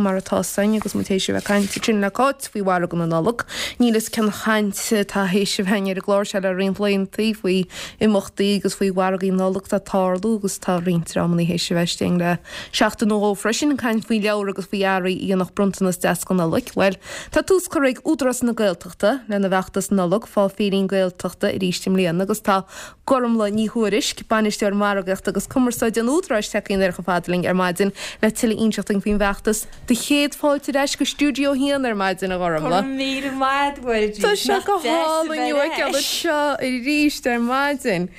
mar atá 'fhios againn agus muid théis a bheith ag caint ansin le Cáit faoi mhargadh na Nollag. Níl 'fhios cén chaint atá théis a bheith againn ar an gclár seo le roinnt laethanta faoi imeachtaí agus faoi mhargaí Nollag atá ag tarlú agus tá roinnt dreamanna théis a bheith istigh le seachtain nó dhó freisin ag caint faoi leabhair agus faoi earraí a dhéanfadh bronntanas deas don Nollaig. Bhuel, tá tús curtha ag Údarás na Gaeltachta lena bhfeachtas Nollag Fáth Féirín Gaeltachta arís i mbliana agus tá Gormlaith Ní Thuairisg, Bainisteoir Margaíochta agus Cumarsáide an Údaráis tagtha aniar chomh fada linn ar maidin le tuilleadh a inseacht dúinn faoin bhfeachtas. Do chéad fáilte ar ais go Stiúideo 1 ar maidin, a Ghormlaith. Go raibh míle maith agat, Mhuirí. Tá sé go hálainn thú a fheiceáil anseo arís ar maidin.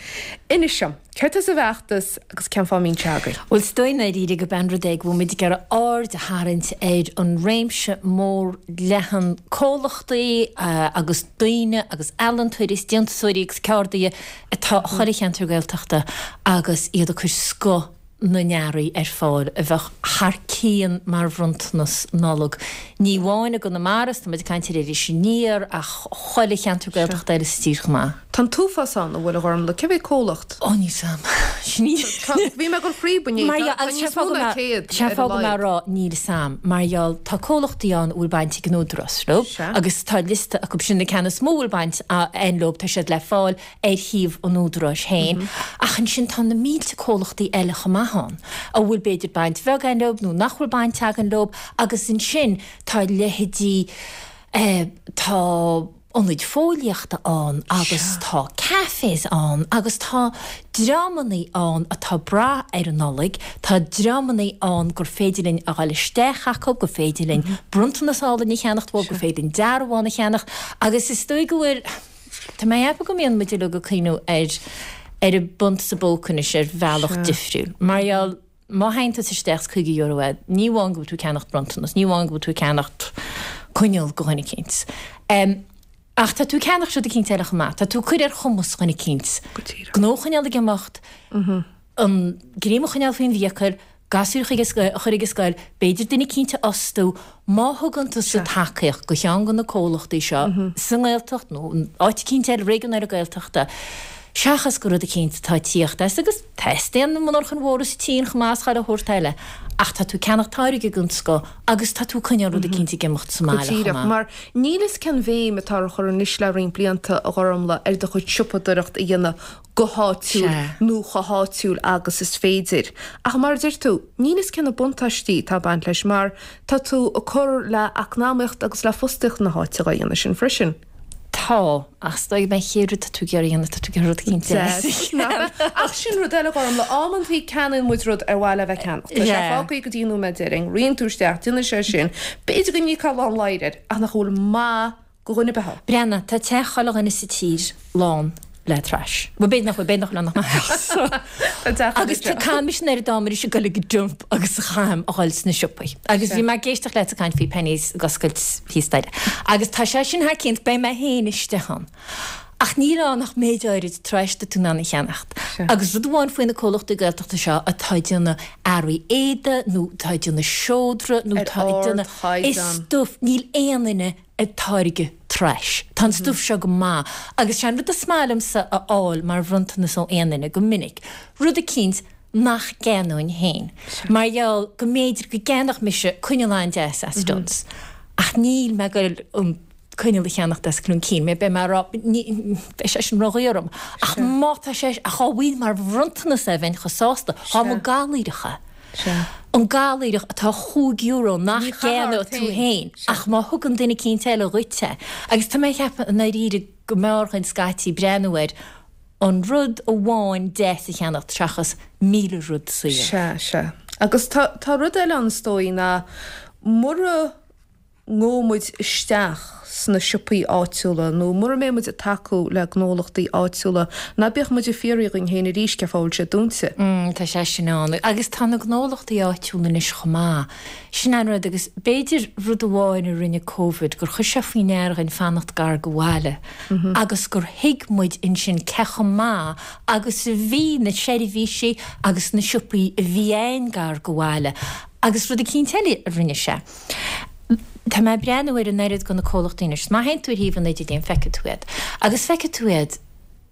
Inis dom, céard tá sa bhfeachtas agus cén fáth a mbíonn sé agaibh? Bhuel, is dóigh i ndáiríre gurb é an rud é go bhfuil muid ag iarraidh aird a tharraingt ar an réimse mór leathan comhlachtaí agus daoine agus ealaíontóirí is déantúsóirí agus ceardaithe atá i chuile cheantar Gaeltachta agus iad ag cur scoth na n-earraí ar fáil a bheadh thar cionn mar bhronntanas Nollag. Ní amháin i gConamara, is tá muid ag caint ar Iris Aniar, ach chuile cheantar Gaeltachta eile sa tír chomh maith. Tá an t-uafás ann, an bhfuil, a Ghormlaith? Cé mhéad comhlacht? Ó, níl 's a'm. Sin í. Bhí mé ag dul fríob inné. Tá níos mó ná 100 ar a laghad. Sé an fáth go mbeadh rá níl 's a'm, mar gheall, tá comhlachtaí ann a bhfuil baint ag an Údarás leo, agus tá liosta acu sin, na ceanna is mó a bhfuil baint a'inn leo, tá siad le fáil ar shuíomh an Údaráis féin, ach ansin tá na mílte comhlachtaí eile chomh maith ann, a bhfuil b'fhéidir baint bheag againn leo nó nach bhfuil baint againn leo, agus ansin tá leithéidí, tá ionaid fóillíochta ann agus tá cafés ann agus tá dreamannaí ann atá ag brath ar an Nollaig, tá dreamannaí ann gur féidir linn a dhul isteach acu, gur féidir linn bronntanas álainn a cheannacht uathu, gur féidir linn dearbhán a cheannacht agus is dóigh go bhfuil, Tá mé ag ceapadh go mbíonn muid uilig ag cuimhniú ar ar an bpunt sa bpóca anois ar bhealach difriúil. Mar gheall, má théann tusa isteach is €50 uait, ní amháin go bhfuil tú ag ceannacht bronntanas, ní amháin go bhfuil tú ag ceannacht coinneal do dhuine eicínt. Ach tá tú ag ceannacht rud eicínt eile chomh maith. Tá tú ag cur ar chumas dhuine eicínt gnó a choinneáil ag imeacht, an greim a choinneáil faoin bhfiacail, gasúir a chur ag an scoil, b'fhéidir duine eicínt a fhostú, má thugann tusa tacaíocht do cheann de na comhlachtaí seo sa nGaeltacht nó in áit eicínt eile, réigiún eile Gaeltachta, seachas go rud eicínt atá ag tíocht as, agus teastaíonn na monarchain mhóra sa tSín chomh maith is chuile shórt eile, ach tá tú ag ceannacht táirge den scoth agus tá tú ag coinneáil rud eicínt ag imeacht sa mbaile chomh maith. Mar níl fhios cén bhéim atá á chur anois le roinnt blianta, a Ghormlaith, ar do chuid siopadóireacht a dhéanamh go háitiúil nó chomh háitiúil agus is féidir. Ach mar a deir tú, níl fhios cé na buntáistí atá ag baint leis mar tá tú ag cur le eacnamaíocht agus le fostaíocht na háite dhá dhéanamh sin freisin. Tá, ach is dóigh gurb é an chéad rud atá tú ag iarraidh a dhéanamh, tá tú ag iarraidh rud eicínt deas a cheannach. Ach sin rud eile, Gormlaith, amantaí ceannaíonn muid rud ar mhaith le bheith ceannacht. Tá sé fágtha go dtí an nóiméad deiridh, ritheann tú isteach, déanann sé sin, b'fhéidir go n-íocfá lán ladhair air, ach nach bhfuil maith go dhuine ar bith. Breathnaigh, tá teach chuile dhuine sa tír lán le trash. Bhuel, b'fhéidir nach bhfuil, b'fhéidir nach bhfuil ann ach mo theachsa. Tá teach Agus tá, caithfidh mise an oiread ama anois ag dul ag an dump agus a chaithim a dhul sna siopaí. Agus bhí mé ag éisteacht leat ag caint faoi Penneys ag oscailt thíos staighre. Agus tá sé sin thar cionn, beidh mé féin istigh ann. Ach níl ann ach méid áirid trash atá tú in ann a cheannacht. Agus rud amháin faoi na comhlachtaí Gaeltachta seo atá ag déanamh earraí éadaigh nó atá ag déanamh seodra nó atá ag déanamh is stuif, níl aon duine ag táirgeadh trash. Tá an stuif seo go maith agus sé an rud is maith liomsa a fháil mar bhronntanas ó aon duine go minic, rud eicínt nach gceannóinn féin. Mar gheall go mb'fhéidir go gceannódh mise coinneal an-deas as Dunnes ach níl mé ag goil an coinneal a cheannacht as Cloon Keen, mé, beidh mé ag rá, ní, beidh sé sin ródhaor orm. Ach má tá sé, ach dhá bhfaighinn mar bhronntanas é bheinn chomh sásta. Dhá mba i gcathaoireach é. An gcathaoireach atá €5 nach gceannódh tú féin, ach má thugann duine eicínt eile dhuit é. Agus tá mé ag ceapadh i ndáiríre go mb'fhearr dhuinn scaití breathnú ar an rud amháin deas a cheannacht seachas 1,000 rud saor. Sea, sea. Agus tá, tá rud eile ann is dóigh ná mura ngabhfaidh muid isteach sna siopaí áitiúla nó mura mbeidh muid ag tacú le gnólachtaí áitiúla, ná bíodh muid ag fiafraí dhínn féin arís cén fáth a bhfuil siad dúnta. Tá sé sin ann. Agus tá na gnólachtaí áitiúla anois chomh maith. Sin an rud agus b'fhéidir rud amháin a rinne Covid gur chuir sé faoi ndear dhuinn fanacht gar go bhaile agus gur thuig muid ansin cé chomh maith agus a bhí na seirbhísí agus na siopaí a bhí a'inn gar go bhaile. Agus rud eicínt eile a rinne sé. Tá mé ag breathnú ar an oiread de na comhlachtaí anois. Má théann tú ar shuíomh an idirlín feicfidh tú iad. Agus feicfidh tú iad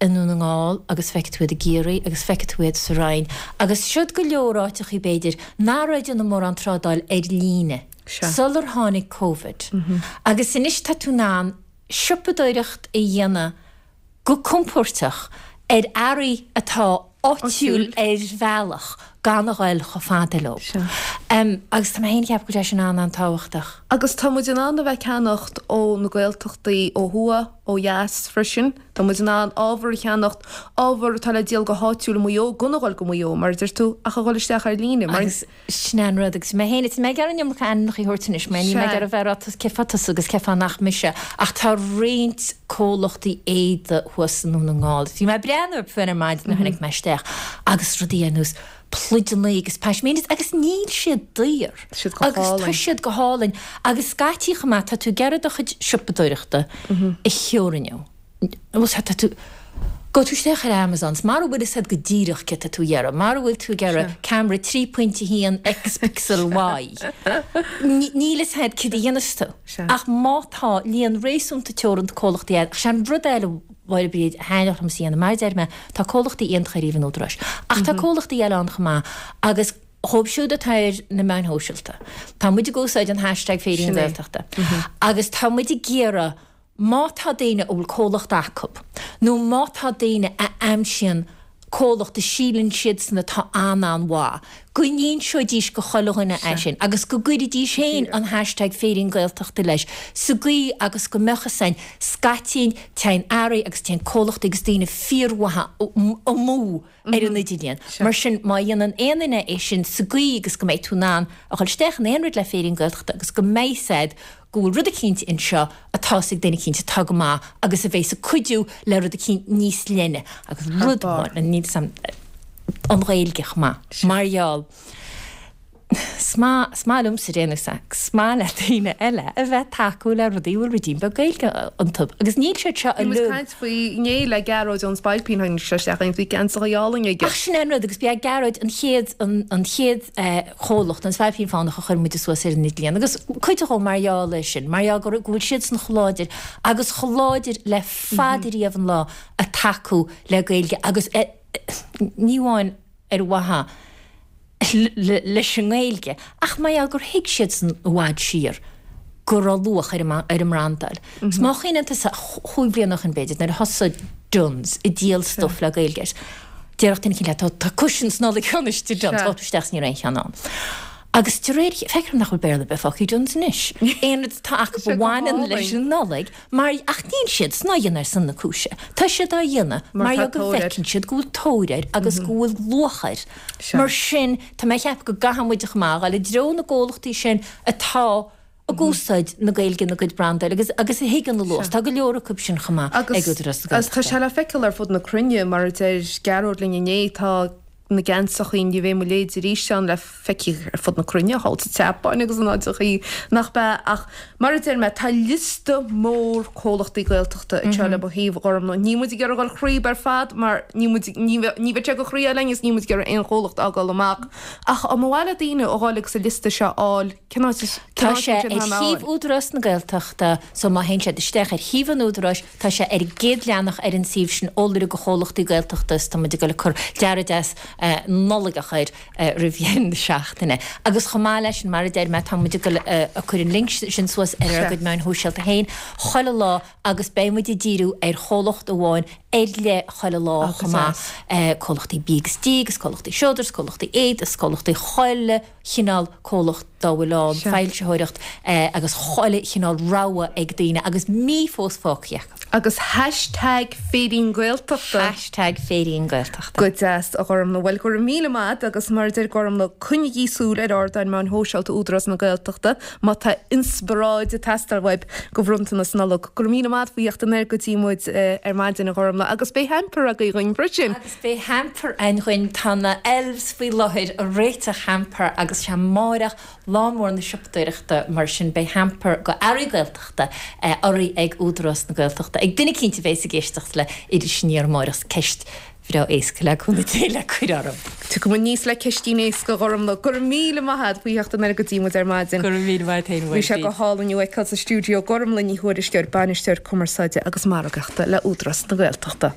i nDún na nGall agus feicfidh tú iad i gCiarraí agus feicfidh tú iad sa Rinn. Agus siod go leor áiteachaí b'fhéidir nach raibh ag déanamh mórán trádáil ar líne. Sular tháinig Covid. Agus anois tá tú in ann siopadóireacht a dhéanamh go compóirteach ar earraí atá áitiúil ar bhealach gan a ghoil chomh fada leo. Agus tá mé féin ag ceapadh go bhfuil sé sin an-an-tábhachtach. Agus tá muid in ann a bheith ag ceannacht ó na Gaeltachtaí ó thuaidh, ó dheas freisin. Tá muid in ann ábhar a cheannacht, ábhar atá le díol go háitiúil i Maigh Eo gan a dhul go Maigh Eo, mar a deir tú, ach a dhul isteach ar líne. Mar. Agus sin é an rud. Agus mé féin, tá mé ag iarraidh an iomarca ainmneacha a thabhairt anois, mar níl mé ag iarraidh a bheith ag rá cé fá tusa agus cé fá nach mise, ach tá roinnt comhlachtaí éadaí thuas i nDún na nGall. Bhí mé ag breathnú orthu féin ar maidin nuair a tháinig mé isteach agus rudaí ar nós pluideanna agus pashminas agus níl siad daor. Siad go Agus tá siad go hálainn. Agus scaití chomh maith, tá tú ag iarraidh do chuid siopadóireachta a theorannú. Bhuel, tá tú, gabh tú isteach ar Amazon, 's mara bhfuil fhios a'd go díreach céard tá tú a iarraidh, mara bhfuil tú ag iarraidh camera 3.1 X pixel Y, níl fhios a'd céard a dhéanfas tú. Ach má tá líon réasúnta teoranta comhlachtaí a'd, ach sé an rud eile, Mháire Bríd, a thaitneodh liomsa a dhéanamh, mar a deir mé, tá comhlachtaí iontacha ar thaobh an Údaráis, ach tá comhlachtaí eile ann chomh maith agus dhóibh siúd atá ar na meáin shóisialta, tá muid ag úsáid an hashtag Féirín Gaeltachta agus tá muid ag iarraidh má tá daoine a bhfuil comhlacht acu nó má tá daoine a aimsíonn comhlacht a síleann siadsan atá an-an-mhaith, go n-inseoidís go chuile dhuine é sin agus go gcuirfidís féin an hashtag Féirín Gaeltachta leis sa gcaoi agus go mbeadh fhios a'inn scaití téann earraí agus téann comhlachtaí agus daoine fíormhaithe amú ar an idirlíon. Mar sin má dhéanann aon duine é sin sa gcaoi agus go mbeidh tú in ann a dhul isteach in aon rud le Féirín Gaeltachta agus go mbeidh fhios a'd go bhfuil rud eicínt anseo atá fhios ag duine eicínt atá go maith agus a bheas ag cuidiú le rud eicínt níos leithne agus rud amháin, níl 'fhios a'm, an Ghaeilge chomh maith, mar gheall, 's maith, 's maith liomsa déanamh 's 's maith le daoine eile a bheith ag tacú le rudaí a bhfuil ruidín beag Gaeilge iontu agus níl siad seo Bhí muid ag caint faoi inné le Gearóid ón Spailpín, tháinig sé isteach agus bhí geansaithe álainn aige. Ach sin é an rud agus b'é Gearóid an chéad, an, an chéad eh, chomhlacht, an Spailpín Fánach a chuir muide suas ar an idirlíon agus cuid dhó mar gheall air sin, mar gheall go go bhfuil siadsan chomh láidir agus chomh láidir le fada riamh an lá ag tacú le Gaeilge agus ní amháin ar mhaithe leis an nGaeilge ach mar gheall gur thuig siadsan i bhfad siar go raibh luach ar an mbrandáil. Is má chuimhníonn tusa, chúig bliana ó shin b'fhéidir, nuair a thosaigh Dunnes ag díol stuif le Gaeilge air, déarfadh duine eicínt leat, tá cushions Nollag anois i Dunnes, ghabh tú isteach is ní raibh aon cheann ann. Agus de réir, feictear dom nach bhfuil Béarla ar bith fágtha i Dunnes anois. Aon rud atá acu a bhaineann leis an Nollaig, mar, ach níl siadsan á dhéanamh ar son na cúise. Tá siad á dhéanamh mar gheall go bhfeiceann siad go bhfuil tóir air agus go bhfuil luach air. Mar sin, tá mé ag ceapadh go gcaithfidh muid chomh maith a dhul i dtreo na gcomhlachtaí sin atá ag úsáid na Gaeilge ina gcuid brandáil agus agus a thuigeann a luach. Tá go leor acu sin chomh maith ag Údarás na Agus tá sé le feiceáil ar fud na cruinne, mar a deir Gearóid linn inné, tá na geansachaí Ní Bheidh Mo Leithéid Arís ann le feiceáil ar fud na cruinne, thall sa tSeapáin agus in áiteachaí nach b'ea. Ach mar a deir mé, tá liosta mór comhlachtaí Gaeltachta anseo le mo thaobh, a Ghormfhlaith. Níl muid ag iarraidh a dhul thríob ar fad mar níl muid, ní bheidh sé go chroí linn agus níl muid ag iarraidh aon chomhlacht a fhágáil amach. Ach dá mba mhaith le daoine a dhul agus an liosta seo a fháil, Cén áit is Tá sé ar shuíomh Údarás na Gaeltachta so má théann siad isteach ar shuíomh an Údaráis tá sé ar an gcéad leathanach ar an suíomh sin eolaire do chomhlachtaí Gaeltachta is tá muid ag dul ag cur dearadh deas Nollaigeach air roimh dheireadh na seachtaine. Agus chomh maith leis sin mar a deir mé tá muid ag dul ag cur an link sin suas ar ár gcuid meáin shóisialta féin chuile lá agus beidh muid ag díriú ar chomhlacht amháin ar leith chuile lá chomh maith, comhlachtaí bídh agus dí agus comhlachtaí seodra is comhlachtaí éadaí is comhlachtaí chuile chineál comhlacht dá bhfuil ann, foilsitheoireacht agus chuile chineál rogha ag daoine agus mí fós fágtha acu. Agus hashtag Féirín Gaeltachta. Hashtag Féirín Gaeltachta. Go deas, a Ghormfhlaith. Bhuel, go raibh míle maith a't agus mar a deir Gormfhlaith, coinnigí súil ar ardáin meáin shóisialta Údarás na Gaeltachta má tá inspioráid ag teastáil uaibh do bhronntanas Nollag. Go raibh míle maith a't faoi theacht anoir go dtí muid ar maidin, a Ghormfhlaith, agus beidh hamper agaibh dhuinn freisin. Beidh hamper againn dhuinn, tá na elves faoi láthair ag réiteach hamper agus sé amáireach lá mór na siopadóireachta mar sin beidh hamper go earraí Gaeltachta urraithe ag Údarás na Gaeltachta ag duine eicínt a bhéas ag éisteacht le Iris Aniar amáireach ceist bhreá éasca le cúnamh Dé le cur orm. Tiocfaidh muid aníos le ceistín éasca a Ghormfhlaith. Go raibh míle maith a't faoi theacht anoir go dtí muid ar maidin. Go raibh míle maith a't fhéin a Bhí sé go hálainn thú a fheiceáil sa stiúideo. Gormfhlaith Ní Thuairisg, Bainisteoir Cumarsáide agus Margaíochta le Údarás na Gaeltachta.